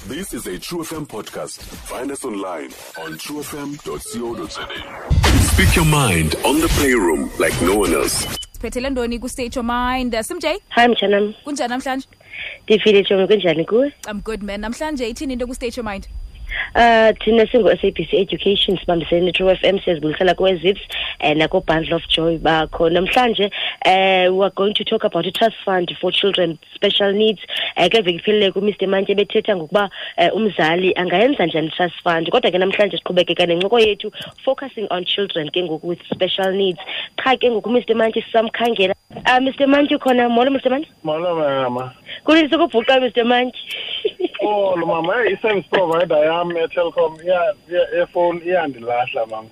This is a True FM podcast. Find us online on truefm.co.za. Speak your mind on the playroom like no one else. Siphethele ntoni ku-State Your Mind? Simj, Hi mtshanam, kunjani namhlanje? Ndiphile tshomi, kunjani kuwe? I'm good, man. Namhlanje ithini into ku-State Your Mind? Thina singu-SABC Education sibambisene ne-True FM, siyazibulisela kwe-Zips nako-Bundle of Joy bakho. Namhlanje we are going to talk about i-trust fund for children special needs. Kule veki iphelileyo kuMr Mantye bethetha ngokuba umzali angayenza njani i-trust fund. Kodwa ke namhlanje siqhubekeka nencoko yethu focusing on children ke ngoku with special needs. Qha ke ngoku Mr Mantye sisamkhangela. Mr Mantye ukhona? Molo Mr Mantye. Molo mama. Kulini sokubhuqa Mr Mantye? Oh mama, i-service provider yam yeTelkom yefowuni iyandilahla mam.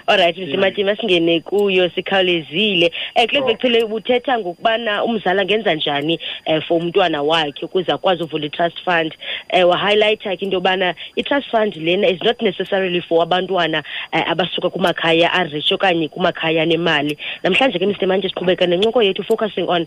All right, Mr Mantye, masingene kuyo sikhawulezile. Kule veki phele ubuthetha ngokubana umzali angenza njani for umntwana wakhe ukuze akwazi uvula i-trust fund. Wa-highlighta ke into yobana i-trust fund lena is not necessarily for abantwana abasuka kumakhaya a-rich okanye kumakhaya anemali. Namhlanje ke Mr Mantye siqhubeka nencoko yethu focusing on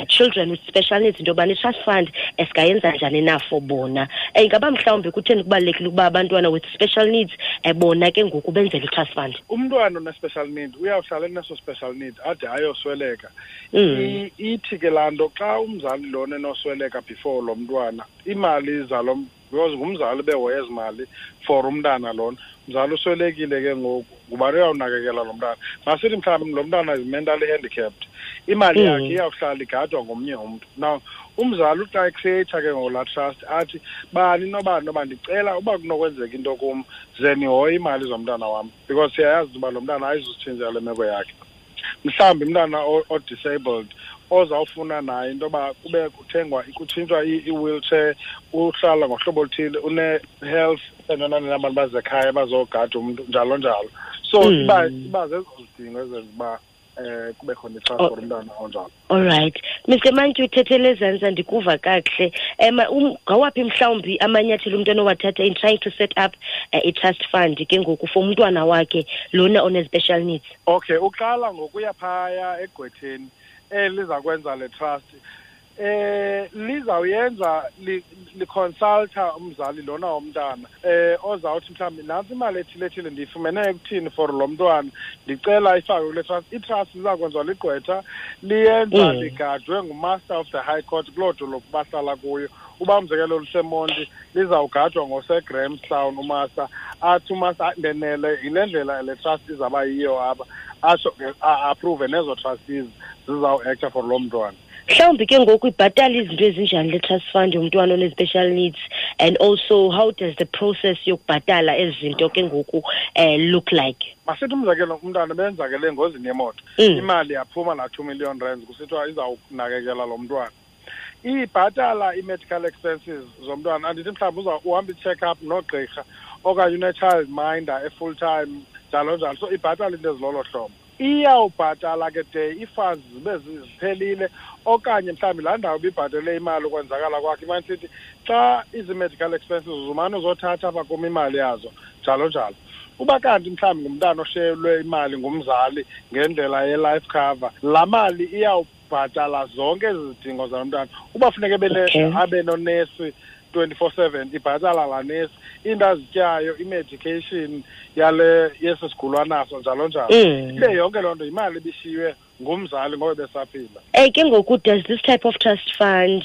children with special needs, into yobana i-trust fund singayenza njani na for bona. Ingaba mhlawumbi kutheni kubalulekile ukuba abantwana with special needs bona ke ngoku benzele i-trust fund? Umntwana one-special need uyawuhlala eneso special need ade ayosweleka. Ithi ke laa nto, xa umzali lona enosweleka before lo mntwana, iimali zalo, because ngumzali behoye ezi mali for umntana lona, mzali uswelekile ke ngoku, ngubani uyawunakekela lo mntana? Masithi mhlawumbi lo mntana is mentally handicapped, imali yakhe iyawuhlala igadwa ngomnye umntu. Now umzali uxa ecreata ke ngoku laa trust, athi bani nobani noba ndicela uba kunokwenzeka into kum, ze nihoye iimali zomntana wam, because siyayazi uba lo mntana ayizusitshintsha le meko yakhe. Mhlawumbi umntana o-disabled ozawufuna naye into yoba kube kuthengwa, kutshintshwa i-wheelchair, uhlala ngohlobo oluthile, une-health entona nabantu bazekhaya bazogada umntu, njalo njalo. So iba zezo zidingo ezenza uba kube khona i-trust for umntana onjalo. All right. Mr Mantyi, uthethele ezantsi, andikuva kakuhle. Ngawaphi mhlawumbi amanyathelo umntu anowathatha in trying to set up i-trust fund ke ngoku for umntwana wakhe lona one-special needs? Okay, uqala ngokuya phaya egqwetheni eliza kwenza le trust. Lizawuyenza liconsulta umzali lona womntana ozawuthi mhlawumbi nantsi imali ethile ethile ndiyifumene ekuthini for lo mntwana, ndicela ifakwe kule trust. I-trust iza kwenziwa ligqwetha, liyenza ligadwe ngumaster of the high court kuloo dolophu bahlala kuyo. Uba umzekelo luseMonti, lizawugadwa ngoseGrahamstown umaster. Athi umaster ndenele yile ndlela le trust izawuba yiyo apha, atsho ke a-approve nezo trustees zizawuacta for loo mntwana. Mhlawumbi ke ngoku ibhatala izinto ezinjani le trust fund yomntwana one-special needs, and also how does the process yokubhatala ezi zinto ke ngoku look like? Masithi umzekelo umntwana benzakele engozini yemoto, imali yaphuma laa R2 million, kusithiwa izawunakekela lo mntwana. Ibhatala i-medical expenses zomntwana, andithi mhlawumbi uza uhamba i-check-up nogqirha okanye une-child minder e-full time, njalo njalo. So ibhatala into ezilolo hlobo. Iyawubhatala ke de ii-funds zibe ziphelile, okanye mhlawumbi laa ndawo ibibhatele imali ukwenzakala kwakhe imane sithi xa izi-medical expenses uzumane uzothatha apha kum imali yazo, njalo njalo. Uba kanti mhlawumbi ngumntana oshiyelwe imali ngumzali ngendlela ye-life cover, laa mali iyawubhatala zonke ezi zidingo zalo mntana. Uba funeka abe nonesi 24/7, ibhatala laa nesi, iinto azityayo, i-medication yale yesi sigulo anaso, njalo njalo. Ibe yonke loo nto yimali ebishiywe ngumzali ngoba besaphila. Ke ngoku does this type of trust fund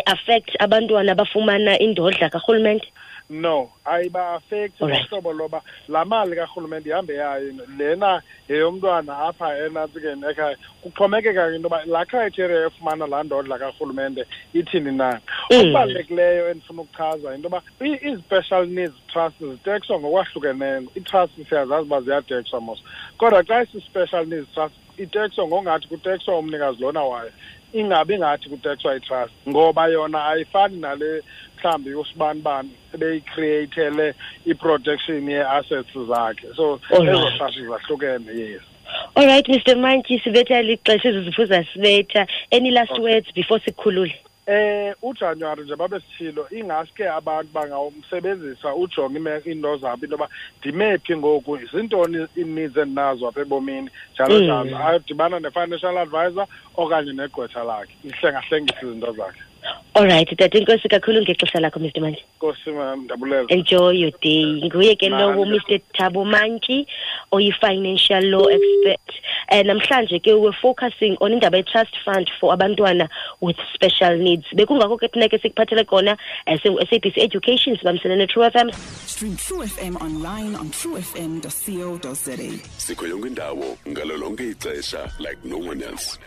affect abantwana abafumana indodla karhulumente? No, ayiba-affecti ngohlobo loba laa mali karhulumente ihambe yayo, lena yeyomntwana apha enantsikeni ekhaya. Kuxhomekeka ke into yoba laa criteria yofumana laa ndodla karhulumente ithini na. Okubalulekileyo endifuna ukuchaza yinto yoba ii-special needs trust zitekswa ngokwahlukeneyo. Ii-trust siyazazi uba ziyatekswa mos, kodwa xa isi-special needs trust itekswa ngongathi kutekswa umnikazi lona wayo, ingabi ngathi kutekswa i-trust, ngoba yona ayifani nale mhlawumbi usibanibani ebeyicreatele i-protection yee-assets zakhe. So ezo trust zahlukene, yes. All right, Mr Mantyi, sibetha lixesha, ezi zipho zasibetha. Any last words before sikhulule? uJanuary nje babe sithilo, ingaske abantu bangawumsebenzisa ujonge iinto zabo, into yoba ndime phi ngoku, zintoni ii-needs endinazo apha ebomini, njalo njalo. Ayodibana ne-financial advisor okanye negqwetha lakhe, ihlengahlengise izinto zakhe. Alright tata, inkosi kakhulu ngexesha lakho, Mr Mantyi. Nkosi mam, ndabulela. Enjoy your day. Nguye ke lowo Mr Thabo Mantyi, oyi-financial law expert. Namhlanje ke we're focusing on indaba ye-trust fund for abantwana with special needs. Bekungakho ke thina ke sikuphathele kona SABC Education, sibambisene ne-True FM. Stream True FM online on truefm.co.za. Sikho yonke indawo ngalo lonke ixesha like no one else.